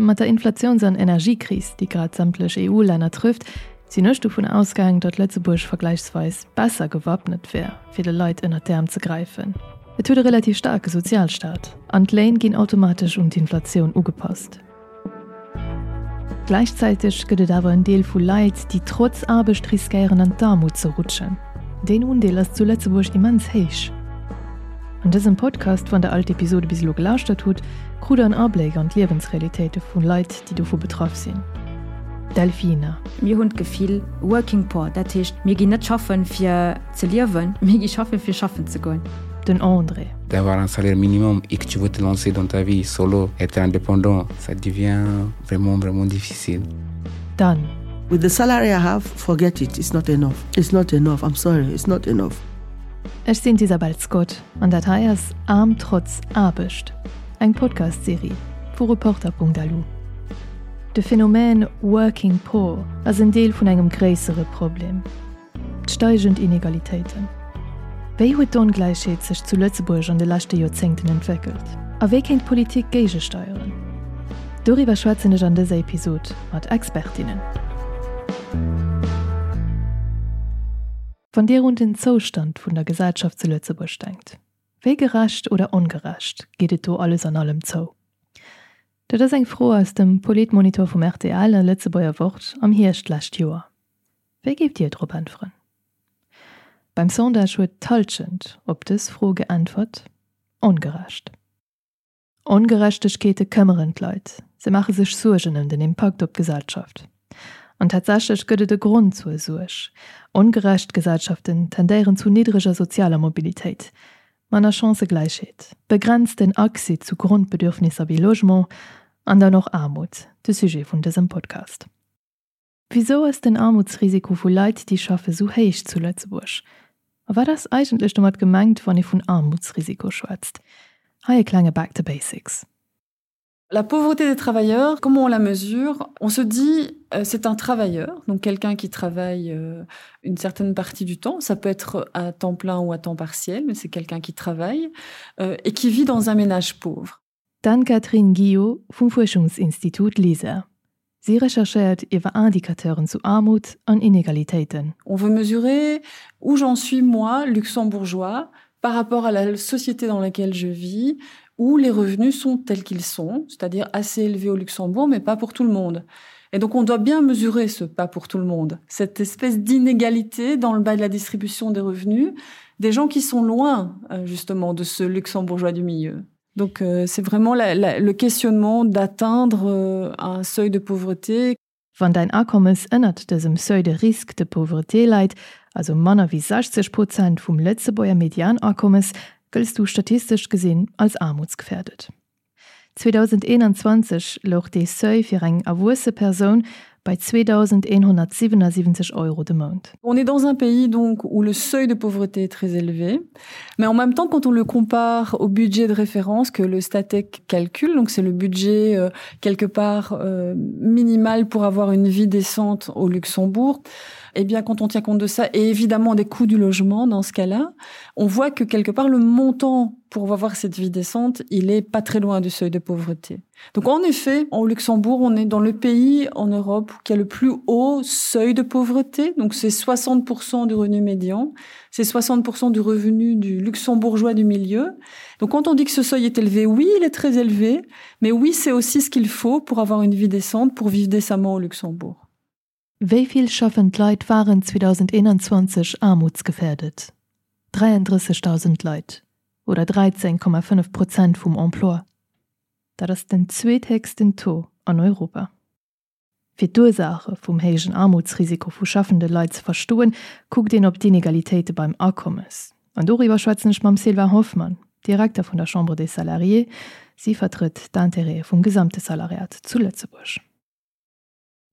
Mat der Inflatiouns an Energiekris, déi grad sämtlech EU-Länner trëfft, sinn ech dovun ausgaang, datt Lëtzebuerg vergläichsweis besser gewappnet wär, fir de Leit ënnert d'Äerm ze gräifen. Et huet e relativ staarke Sozialstaat an d'Léin ginn automatesch un d'Inflatioun ugepasst. Gläichzäiteg gëtt et awer en Deel vu Leit, déi trotz Aarbecht riskéieren an d'Aarmut ze rutschen. Deen Undeel ass zu Lëtzebuerg immens héich. An dësem Podcast, wann der all d'Episode bis elo gelauschtert hutt, krut der en Abléck an d'Liewensrealitéite vu Leit, déi dovu betraff sinn. D'Delfina. Mir hunn d'Gefill working poor, dat heescht mir ginn net schaffen fir ze liewen, mir gi schaffen fir schaffen ze goen. Den André. D'avoir un salaire minimum et que tu veux te lancer dans ta vie solo, être indépendant, ça devient vraiment vraiment difficile. D'Anne. With the salary I have, forget it, it's not enough, it's not enough, I'm sorry, it's not enough. Ech sinn d'Isabel Scott an dat hei ass Aarm trotz Aarbecht, eng Podcast-Serie vu Reporter.lu. De Phänomen Working Poor ass en Deel vun engem gréissere Problem, d'steigend Inegalitéiten. Wéi huet d'Ongläichheet sech zu Lëtzebuerg an de leschte Joerzéngten entwéckelt? A wéi kéint d'Politik géigesteieren? Doriwwer schwätzen ech an dëser Episod mat Expertinnen. Wann Dir un den Zoustand vun der Gesellschaft zu Lëtzebuerg denkt, wéi gerecht oder ongerecht geet et do alles an allem zou? Dat ass eng Fro aus dem Politmonitor vum rtl a Lëtzebuerger Wort am Hierscht d'lescht Joer. Wéi géift Dir drop äntweren? Beim Sondage huet d'Hallschent op dës Fro geäntwert, ongerecht. Ongerechtegkeete këmmeren d'Leit, se maache sech Suergen ëm den Impakt op d'Gesellschaft. An tatsächlech gëtt et e Grond zur Suerg, Ongerecht Gesellschaften tendéieren zu niddreger sozialer Mobilitéit, manner Chancëgläichheet, begrenzten Accès zu Grondbedürfnisser wéi Logement an dann och Aarmut, de Sujet vun dësem Podcast. Wisou ass den Aarmutsrisiko vu Leit, déi schaffe sou héich zu Lëtzebuerg? A wat ass eigentlech domat gemengt, wann ee vun Aarmutsrisiko schwätzt? Hei e klenge Back to Basics. La pauvreté des travailleurs, comment on la mesure? On se dit euh, c'est un travailleur, donc quelqu'un qui travaille euh, une certaine partie du temps, ça peut être à temps plein ou à temps partiel, mais c'est quelqu'un qui travaille euh, et qui vit dans un ménage pauvre. D'Anne-Catherine Guio vum Fuerschungsinstitut LISER. Si recherchéiert iwwer Indicateuren zu Aarmut an Inegalitéiten. On veut mesurer où j'en suis moi, luxembourgeois, par rapport à la société dans laquelle je vis, où les revenus sont tels qu'ils sont, c'est-à-dire assez élevés au Luxembourg, mais pas pour tout le monde. Et donc on doit bien mesurer ce pas pour tout le monde, cette espèce d'inégalité dans le bas de la distribution des revenus, des gens qui sont loin euh, justement de ce luxembourgeois du milieu. Donc euh, c'est vraiment la, la, le questionnement d'atteindre euh, un seuil de pauvreté. Wann däin Akommes ënnert dësem Seuil de risque de pauvreté läit, also manner wéi 60 Prozent vum Lëtzebuerger Medianakommes, gëlls du statistesch gesinn als aarmutsgefährdet. 2021 louch dee Seuil fir eng erwuesse Persoun bei 2.177 Euro de Mount. On est dans un pays donc où le seuil de pauvreté est très élevé, mais en même temps quand on le compare au budget de référence que le Statec calcule, donc c'est le budget euh, quelque part euh, minimal pour avoir une vie décente au Luxembourg, eh bien quand on tient compte de ça et évidemment des coûts du logement dans ce cas-là, on voit que quelque part le montant pour avoir cette vie décente, il est pas très loin du seuil de pauvreté. Donc en effet, au Luxembourg, on est dans le pays en Europe qui a le plus haut seuil de pauvreté, donc c'est 60% du revenu médian, c'est 60% du revenu du luxembourgeois du milieu. Donc quand on dit que ce seuil est élevé, oui, il est très élevé, mais oui, c'est aussi ce qu'il faut pour avoir une vie décente, pour vivre décemment au Luxembourg. Wéi vill schaffend Leit waren 2021 aarmutsgefährdet? 33.000 Leit oder 13,5 Prozent vum Emploi. Dat ass den zweethéchsten Taux an Europa. Fir d'Ursaache vum héijen Aarmutsrisiko vu schaffende Leit ze verstoen, kuckt een op d'Inegalitéite beim Akommes. An doriwwer schwätzen ech mam Sylvain Hoffmann, Direkter vun der Chambre des Salariés. Si vertrëtt d'Intérêtë vum gesamte Salariat zu Lëtzebuerg.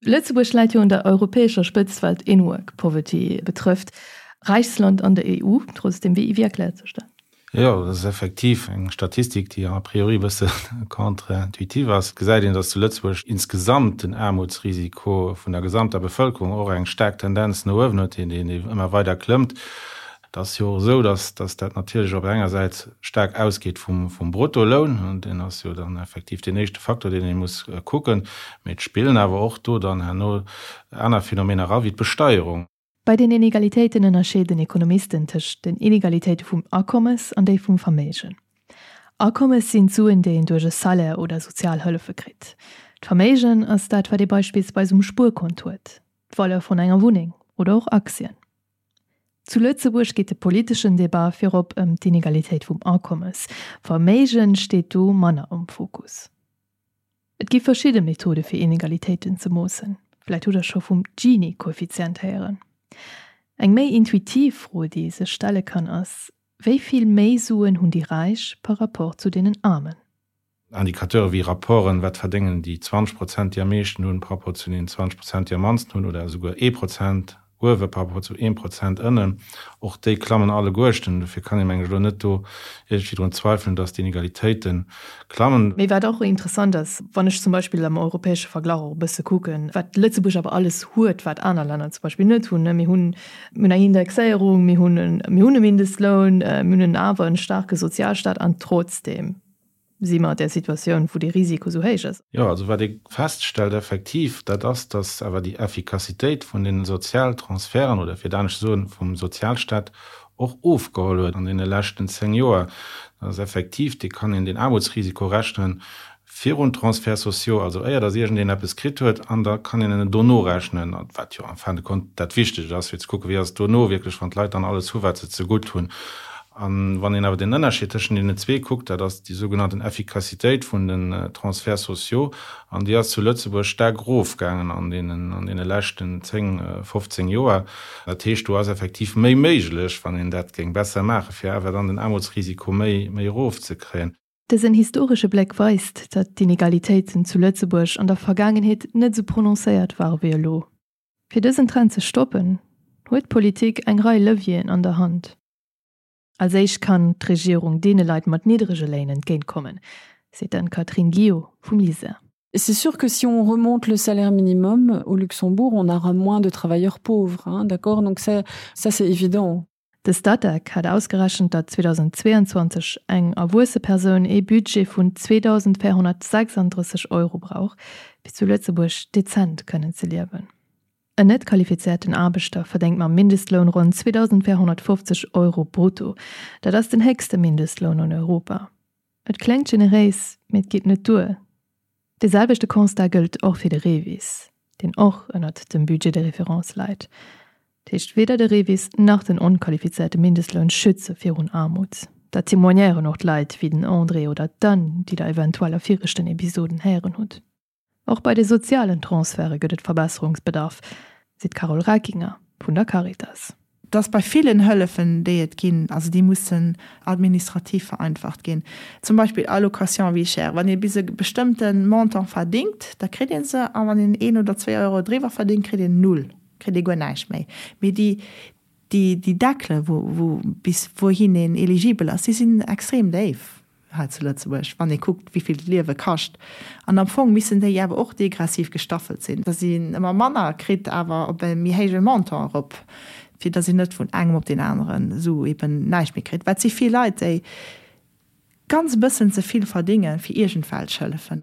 Lëtzebuerg läit jo un der europäescher Spëtzt wat In-Work Poverty betrëfft. Räichst Land an der EU, trotzdem, wéi erkläert sech dat? Jo, dat ass effektiv eng Statistik, déi a priori e bësse contre-intuitiv ass. Et gesäit een, datt zu Lëtzebuerg insgesamt den Aarmutsrisiko vun der gesamter Bevëlkerung och eng staark Tendenz no uewen huet, deen ëmmer weider klëmmt. Et ass jo och esou, dass dass dat natierlech op enger Säit staark ausgeet vum vum Bruttoloun, deen ass jo dann effektiv deen éischte Faktor, deen ee muss kucken, mee et spillen awer och do dann herno aner Phänomener era wéi d'Besteierung. Bei den Inegalitéiten ënnerscheeden Ekonomisten tëscht den Inegalitéite vum Akommes an déi vum Verméigen. Akommes sinn d'Suen, déi een duerch e Salaire oder sozial Hëllefe kritt. D'Verméigen ass dat, wat ee beispillsweis um Spuerkont huet, d'Valeur vun enger Wunneng oder och Aktien. Zu Lëtzebuerg geet de politeschen Debat virop ëm d'Inegalitéit vum Akommes. Verméigen steet do manner am Fokus. Et gi verschidde Methode fir Inegalitéiten ze moossen. Vläit hutt der scho vum Gini-Koeffizient héieren. Eng méi intuitiv Fro déi ee sech stelle kann ass, Wéi vill méi Suen hunn déi Räich par rapport zu deenen Aarmen? Indicateure wéi Rapporten, wat verdéngen déi 20 Prozent, déi am meeschten hunn, par rapport zu den 20 Prozent, déi am mannsten hunn, oder esouguer ee Prozent uewe par rapport zu eem Prozent ënnen, och déi klammen alleguerten. Dofir kann ee meng ech elo net do iergendwéi drun zweifelen, dass d'Inegalitéite klammen. Mee wat och interessant ass, wann ech zum Beispill am europäesche Verglach och e bësse kucken, wat Lëtzebuerg awer alles huet, wat aner Länner zum Beispill net hunn, mir hunn Mir hunn eng Indexéierung, mir hunn mir hunn e Mindestloun, mir hunn awer en staarke Sozialstaat an trotzdeem si mer an där Situatioun, wou dee Risiko esou héich ass. Jo, also wat ee feststellt effektiv, dat ass, datt awer déi Effikassitéit vun deene Sozialtransferten oder fir et anescht ze soen, vum Sozialstaat och ofgeholl huet an deene leschten 10 Joer. Dat ass effektiv, dee kann een den Aarmutsrisiko rechnen Virun Transferts sociaux, also éier datt iergendeen eppes kritt huet, an da kann een en dono rechnen, wat jo en fin de compte dat Wichtegt ass, fir ze kucken, wéi ass et dono wierklech, wann d'Leit dann alles hu wat se zegutt hunn. A wann een awer den Ënnerscheed tëschent deenen zwee kuckt, dat ass déi sougenannten Effikassitéit vun den Transferts sociaux, an déi ass zu Lëtzebuerg staark erofgaangen an deenen, an deene leschten 10, 15 Joer. Dat heescht, do ass effektiv méi méiglech, wann een dat géing besser maachen, fir awer dann den Aarmutsrisiko méi, méi erofzekréien. Dësen historesche Bléck weist, datt d'Inegalitéiten zu Lëtzebuerg an der Vergaangenheet net esou prononcéiert ware wéi elo. Fir dësen Trend ze stoppen, huet d'Politik eng Rei Levieren an der Hand. Als éischt kann d'Regierung deene Leit mat niddrege Léin entgéintkommen, seet d'Anne-Catherine Guio vum LISER. C'est sûr que si on remonte le salaire minimum au Luxembourg, on aura moins de travailleurs pauvres, hein, d'accord donc ça, ça c'est évident. De Statec hat ausgerechent, datt 2022 eng erwuesse Persoun ee Budget vun 2.436 Euro brauch, fir zu Lëtzebuerg dezent kënnen ze liewen. En net qualifizéierten Aarbechter verdéngt mam Mindestloun ronn 2.450 Euro brutto. Dat ass den héchste Mindestloun an Europa. Et kléngt generéis, mee et geet net duer. Dee selwechte Constat gëllt och fir de REVIS, deen och ënnert dem Budget de référence leit. Dat heescht, weder de REVIS nach den onqualifizéierte Mindestloun schütze virun Aarmut. Dat témoignéieren och d'Leit wéi den André oder d'Anne, déi der eventuell a viregten Episoden héieren hutt. Och bei de sozialen Transferte gëtt et Verbesserungsbedarf, seet d'Carole Reckinger vun der Caritas. Dass bei villen Hëllefen, déi et ginn, also déi mussen administrativ vereinfacht ginn, zum Beispill Allocation vie chère, wann ee bis e bestëmmte Montant verdingt, da kritt ee se, a wann een een oder zwee Euro driwwer verdingt, kritt een null, kritt ee guer näischt méi. Mee déi, déi, déi Deckele wou, wou bis wouhin een eligibel ass, déi sinn extrem déif. Hei zu Lëtzebuerg, wann ee kuckt, wéi vill d'Liewe kascht. An am Fong missten déi awer och degressiv gestaffelt sinn, datt een ëmmer manner kritt, awer op e méi héije Montant erop, fir datt een net vun engem op deen aneren esou eben näischt méi kritt. Well et si vill Leit, déi ganz e bëssen ze vill verdénge fir iergendwelch Hëllefen.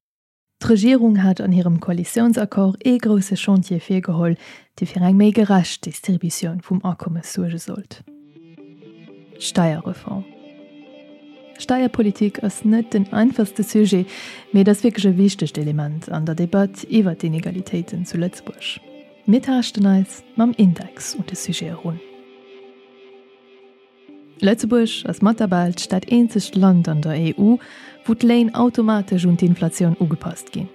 D'Regierung hat an hirem Koalitiounsaccord ee grousse Chantier virgeholl, dee fir eng méi gerecht Distributioun vum Akommes suerge sollt, d'Steierreform. Steierpolitik ass net den einfachste Sujet, mee et ass wierklech e wichtegt Element an der Debatt iwwer d'Inegalitéiten zu Lëtzebuerg. Mir taaschten eis mam Index un de Sujet erun. Lëtzebuerg ass mat der Belsch dat eenzegt Land an der EU, wou d'Léin automatesch un d'Inflatioun ugepasst ginn,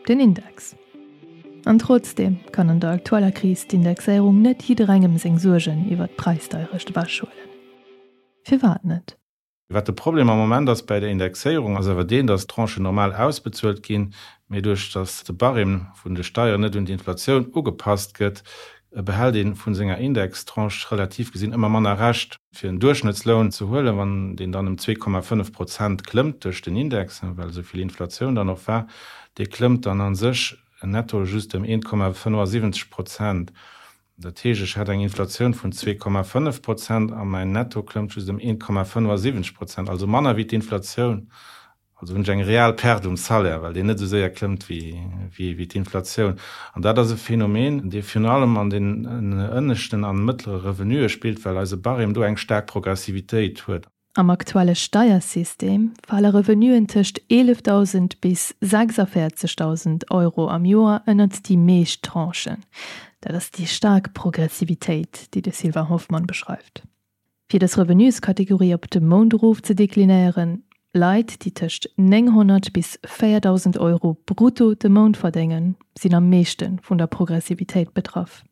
den Index. An trotzdeem kann an der aktueller Kris d'Indexéierung net jidderengem seng Suergen iwwer d'Präisdeierecht ewechhuelen. Firwat net? Wat de Problem am Moment ass bäi der Indexéierung, ass awer deen, datt d'Tranchen normal ausbezuelt ginn, mee duerch datt de Barème vun de Steieren net un d'Inflatioun ugepasst gëtt, behält ee vu senger Indextranche relativ gesinn ëmmer manner Rescht. Fir en Duerchschnëttsloun ze huelen, wann deen dann ëm 2,5 Prozent klëmmt duerch den Index, well esou vill Inflatioun dann och war, dee klëmmt dann a sech netto just ëm 1,75 Prozent. Dat heescht, ech hat eng Inflatioun vun 2,5 Prozent a mäin Netto klëmmt just ëm 1,75 Prozent, also manner wéi d'Inflatioun. Also hunn ech eng real Perte um Salaire, well deen net esou séier klëmmt wéi d'Inflatioun. An dat ass e Phänomen, dee virun allem an den ënneschten an mëttlere Revenuë spillt, well eise Barème do eng staark Progressivitéit huet. Am aktuelle Steiersystem fale Revenuen tëscht 11.000 bis 46.000 Euro am Joer ënnert déi meescht Tranchen. Dat ass déi staark Progressivitéit, déi de Sylvain Hoffmann beschreift. Fir dës Revenueskategorie op de Mount erof ze deklinéieren, Leit, déi tëscht 900 bis 4.000 Euro brutto de Mount verdéngen, sinn am meeschte vun der Progressivitéit betraff.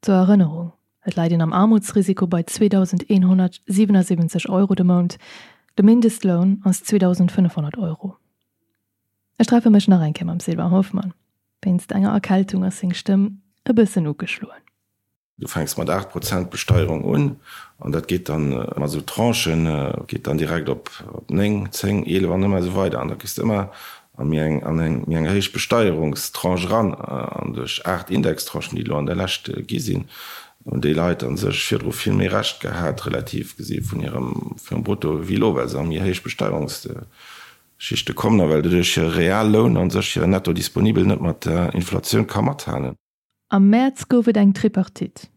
Zur Erënnerung, Et läit een am Aarmutsrisiko bei 2.177 Euro de Mount, de Mindestloun ass 2.500 Euro. Ech treffe mech nach eng Kéier mam Sylvain Hoffmann. Wéinst enger Erkältung ass seng Stëmm e bëssen ugeschloen. Du fänks mat 8 Prozent Besteierung un an dat geet dann mat esou Tranchen, geet dann direkt op 9, 10, 11 an ëmmer esou weider. An da kriss de ëmmer a méi eng, an eng méi eng héich Besteierungstranche eran. An duerch 8 Indextranchen, déi elo an der Lescht gi sinn, hunn déi Leit a sech virdru vill méi Recht gehat, relativ gesi vun hirem, vun hirem Brutto, wéi elo, well se a méi héich Besteierungsschichte kommen a well doduerch hire Realloun a sech hire Netto disponibel net mat der Inflatioun ka mathalen. Am Mäerz gouf et eng Tripartite,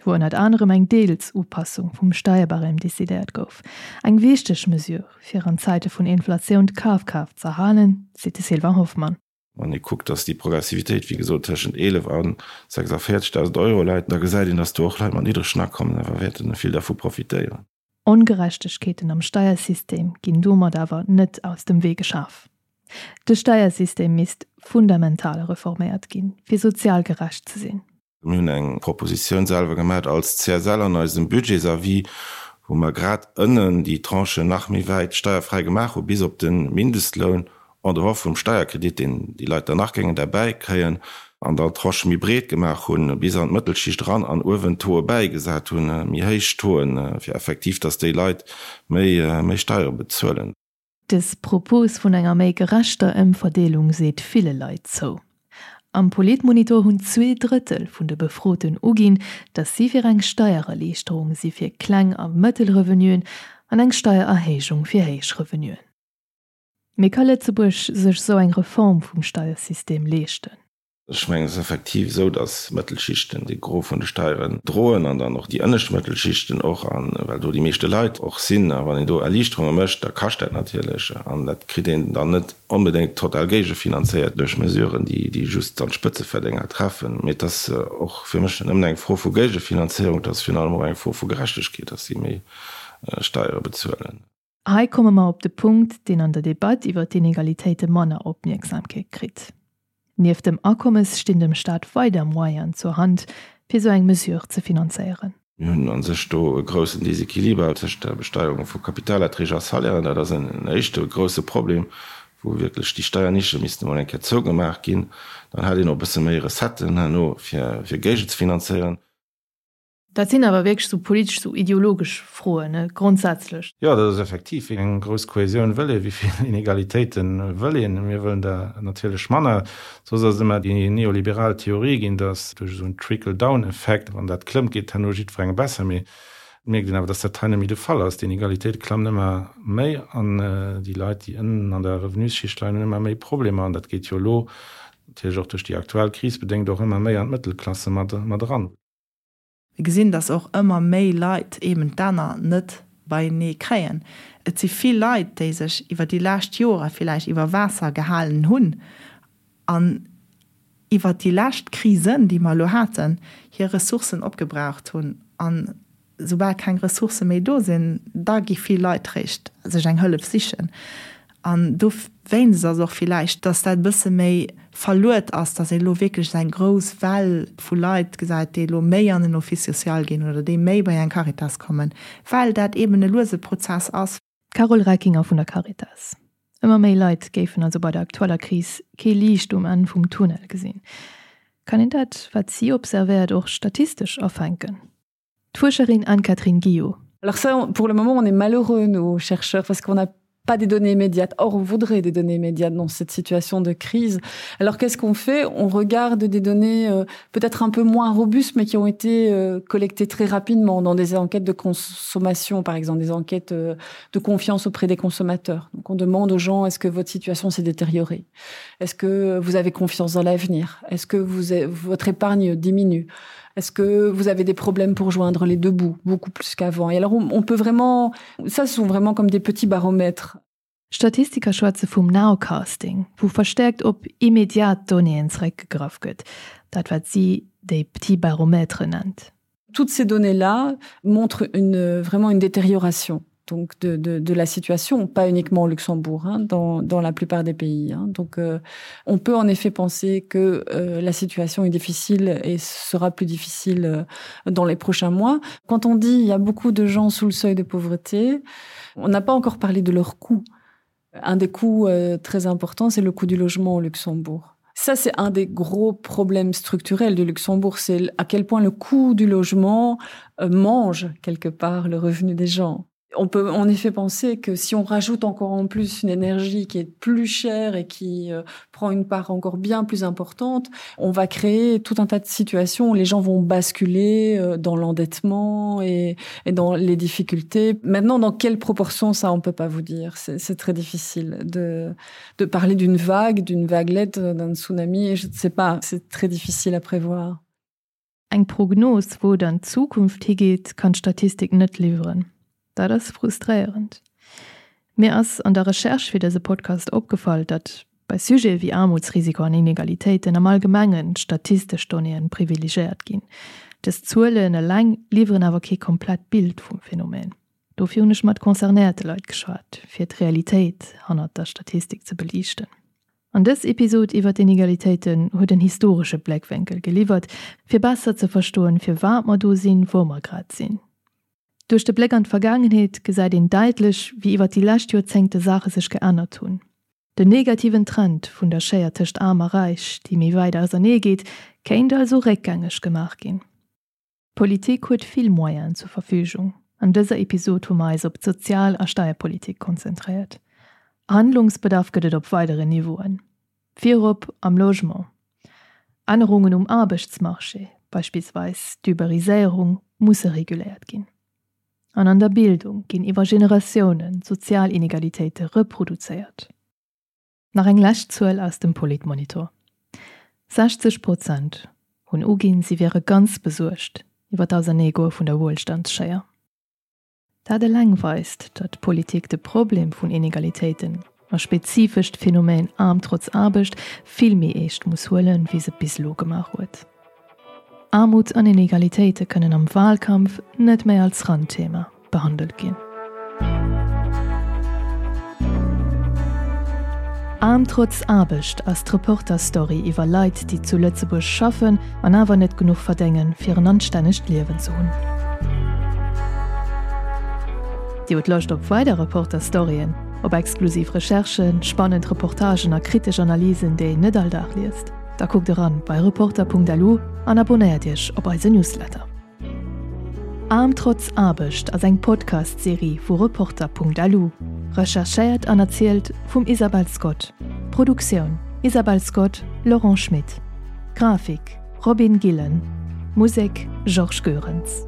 wou ënnert anerem eng Deels-Upassung vum Steierbarème decidéiert gouf. Eng wichteg Mesure, fir an Zäite vun Inflatioun d'Kafkraaft z'erhalen, seet de Sylvain Hoffmann. Wann ee kuckt, dass déi Progressivitéit, wéi gesot, tëschent 11 a 46.000 Euro läit, da gesäit een, dass do och Leit mat niddregen Akommen awer wäerte vill dervu profitéieren. Ongerechtegkeeten am Steiersystem ginn domat awer net aus dem Wee geschaf. De Steiersystem misst fundamental reforméiert ginn, fir sozial gerecht ze sinn. Mir hunn eng Propositioun selwer gemat als CSL an eisem Budgetsavis, wou mer grad ënnen déi Tranchen nach méi wäit steierfräi gemaach hu bis op de Mindestloun, en dehors vum Steierkredit, deen déi Leit dann nach géingen derbäi kréien, an dann d'Tranchë méi breet gemaach hunn, bis an d'Mëttelschicht eran, an uewen d'Tauxe bäigesat hunn, méi héich Tauxen, fir effektiv, dass déi Leit méi, méi Steiere bezuelen. Dës Propos vun enger méi gerechter Ëmverdeelung seet ville Leit zou. Am Politmonitor hunn 2/3 vun de Befroten uginn, datt si fir eng Steiererliichterung si fir kleng a mëttel Revenuen an eng Steiererhéijung fir héich Revenuen. Mee ka Lëtzebuerg sech esou eng Reform vum Steiersystem leeschten? Ech mengen, et ass effektiv esou, datt d'Mëttelschichten de Gros vun de Steieren droen an dann och déi ënnescht Mëttelschichten och, a well do déi meeschte Leit och sinn. A wann een do Erliichterunge mécht, da kascht dat natierlech an dat kritt een dann net onbedéngt total géigefinanzéiert duerch Mesuren, déi just dann d'Spëtzeverdénger treffen. Mee et ass och fir mech net nëmmen eng Fro vu Géigefinanzéierung, et ass virun allem och eng Fro vu Gerechtegkeet, datt si méi Steiere bezuelen. Hei komme mer op de Punkt, deen an der Debatt iwwer d'Inegalitéite manner Opmierksamkeet kritt. Nieft dem Akommes stinn dem Staat weider Moyenen zur Hand, fir esou eng Mesure ze finanzéieren. Mir hunn a sech do e groussen Desequiliber tëscht der Besteierung vu Kapitalerträg a Salairen. Dat ass en éischte grousse Problem, wou wierklech déi Steiernische missten emol eng Kéier zougemaach ginn. Dann hätt een och e bësse méi Recetten herno, fir géigezefinanzéieren. Dat sinn awer wierklech esou politesch, esou ideologesch Froen, ne, grondsätzlech. Jo, dat ass effektiv, wéi eng grouss Kohäsioun wëll een, wéi vill Inegalitéite wëll een? Mir wëllen der natierlech manner. Soss ass et ëmmer déi neoliberal Theorie ginn, datt duerch esou en Trickle-down-Effekt, wann dat klëmmt, geet herno jiddwerengem besser. Mee et mierkt een awer, datt dat hei net méi de Fall ass. D'Inegalitéite klammen ëmmer méi an déi Leit, déi ënnen an der Revenusschicht leien, hunn ëmmer méi Problemer. An dat geet jo elo, natierlech och duerch déi aktuell Kris bedéngt, och ëmmer méi an d'Mëttelklasse mat eran. Mir gesinn, dass och ëmmer méi Leit eeben d'Enner net beienee kréien. Et si vill Leit, déi sech iwwer déi lescht Jore villäicht iwwer Waasser gehalen hunn an iwwer déi lescht Krisen, déi mer elo haten, hir Ressourcen opgebraucht hunn. An soubal keng Ressourcë méi do sinn, da gi vill Leit réischt sech eng Hëllef sichen. An dowéinst ass och villäicht, dass dat e bësse méi verluet ass, dass ee elo wierklech esou eng grouss Well vu Leit gesäit, déi elo méi an en Office social ginn oder déi méi bei eng Caritas kommen, well dat eeben e luese Prozess ass. D'Carole Reckinger vun der Caritas. Ëmmer méi Leit géifen also bei der aktueller Kris kee Liicht um Enn vum Tunnel gesinn. Kann een dat, wat si observéiert, och statistesch afänken? D'Fuerscherin Anne-Catherine Guillot. Alors ça, pour le moment, on est malheureux, nos chercheurs, parce qu'on a. Pas des données immédiates. Or, on voudrait des données immédiates dans cette situation de crise. Alors qu'est-ce qu'on fait? On regarde des données euh, peut-être un peu moins robustes, mais qui ont été euh, collectées très rapidement dans des enquêtes de consommation, par exemple, des enquêtes euh, de confiance auprès des consommateurs. Donc on demande aux gens est-ce que votre situation s'est détériorée? Est-ce que vous avez confiance dans l'avenir? Est-ce que vous avez, votre épargne diminue? Est-ce que vous avez des problèmes pour joindre les deux bouts beaucoup plus qu'avant? Et alors on, on peut vraiment ça ce sont vraiment comme des petits baromètres. Statistiker schwätze vum Nowcasting, wou verstäerkt op immediat Donnéeën zeréckgegraff gëtt, dat wat si déi petits baromètres nennt. Toutes ces données-là montrent une, vraiment une détérioration donc de, de, de la situation, pas uniquement au Luxembourg, hein, dans, dans la plupart des pays. Hein. Donc euh, on peut en effet penser que euh, la situation est difficile et sera plus difficile euh, dans les prochains mois. Quand on dit il y a beaucoup de gens sous le seuil de pauvreté, on n'a pas encore parlé de leur coût. Un des coûts euh, très importants, c'est le coût du logement au Luxembourg. Ça, c'est un des gros problèmes structurels du Luxembourg, c'est à quel point le coût du logement euh, mange quelque part le revenu des gens. On peut en effet penser que si on rajoute encore en plus une énergie qui est plus chère et qui euh, prend une part encore bien plus importante, on va créer tout un tas de situations où les gens vont basculer euh, dans l'endettement et, et dans les difficultés. Maintenant, dans quelle proportion ça on peut pas vous dire. C'est très difficile de, de parler d'une vague, d'une vaguelette, d'un tsunami, je ne sais pas, c'est très difficile à prévoir. Eng Prognos, wou et an d'Zukunft higeet, kann d'Statistik net liwweren. Dat ass frustréierend. Mir ass an der Recherche fir dëse Podcast opgefall, datt bei Sujete wéi Aarmutsrisiko an Inegalitéiten am Allgemengen d'statistesch Donnéeën privilegéiert ginn. Dës Zuelen eleng liwweren awer kee komplett Bild vum Phänomen. Dofir hunn ech mat concernéierte Leit geschwat, fir d'Realitéit hannert der Statistik ze beliichten. An dës Episod iwwer d'Inegalitéiten huet en historesche Bléckwénkel geliwwert, fir besser ze verstoen, firwat mer do sinn, wou mer grad sinn. Duerch de Bléck an d'Vergaangenheet gesäit een däitlech, wéi iwwer déi lescht Joerzéngte Saache sech geännert hunn. Den negativen Trend vun der Schéier tëscht Aarm a Räich, déi méi wäit ausernee geet, kéint also réckgängeg gemaach ginn. D'Politik huet vill Moyenen zur Verfügung. An dëser Episod hu mer eis op d'Sozial a Steierpolitik konzentréiert. Handlungsbedarf gëtt et op weideren Niveauen, virop am Logement. Ännerungen um Aarbechtsmarché, beispillsweis d'Uberiséierung, musse reguléiert ginn. An an der Bildung ginn iwwer Generatiounen sozial Inegalitéite reproduzéiert. Nach eng lescht Zuel aus dem Politmonitor, 60 Prozent hunn uginn, si wiere ganz besuergt iwwer d'Auserneegoe vun der Wuelstandsschéier. Dat eleng weist, datt d'Politik de Problem vun Inegalitéiten, a spezifesch d'Phänomen Aarm trotz Aarbecht, vill méi eescht muss huelen, wéi se et bis elo gemaach huet. Aarmut an Inegalitéite kënnen am Wahlkampf net méi als Randthema behandelt ginn. Aarm trotz Aarbecht ass d'Reporter-Story iwwer Leit, déi zu Lëtzebuerg schaffen an awer net genuch verdéngen, fir en anstännegt Liewen ze hunn. Dir hutt Loscht op weider Reporter-Storyen, op exklusiv Recherchen, spannend Reportagen a kritesch Analysen, déi een net all Dag liest? Da kuckt eran bei Reporter.lu an abonnéiert iech op eise Newsletter. Aarm trotz Aarbecht ass eng Podcast-Serie vu Reporter.lu, recherchéiert an erzielt vum Isabel Scott. Produktioun, Isabel Scott, Laurent Schmit. Grafik, Robin Gillen. Musek, Georges Goerens.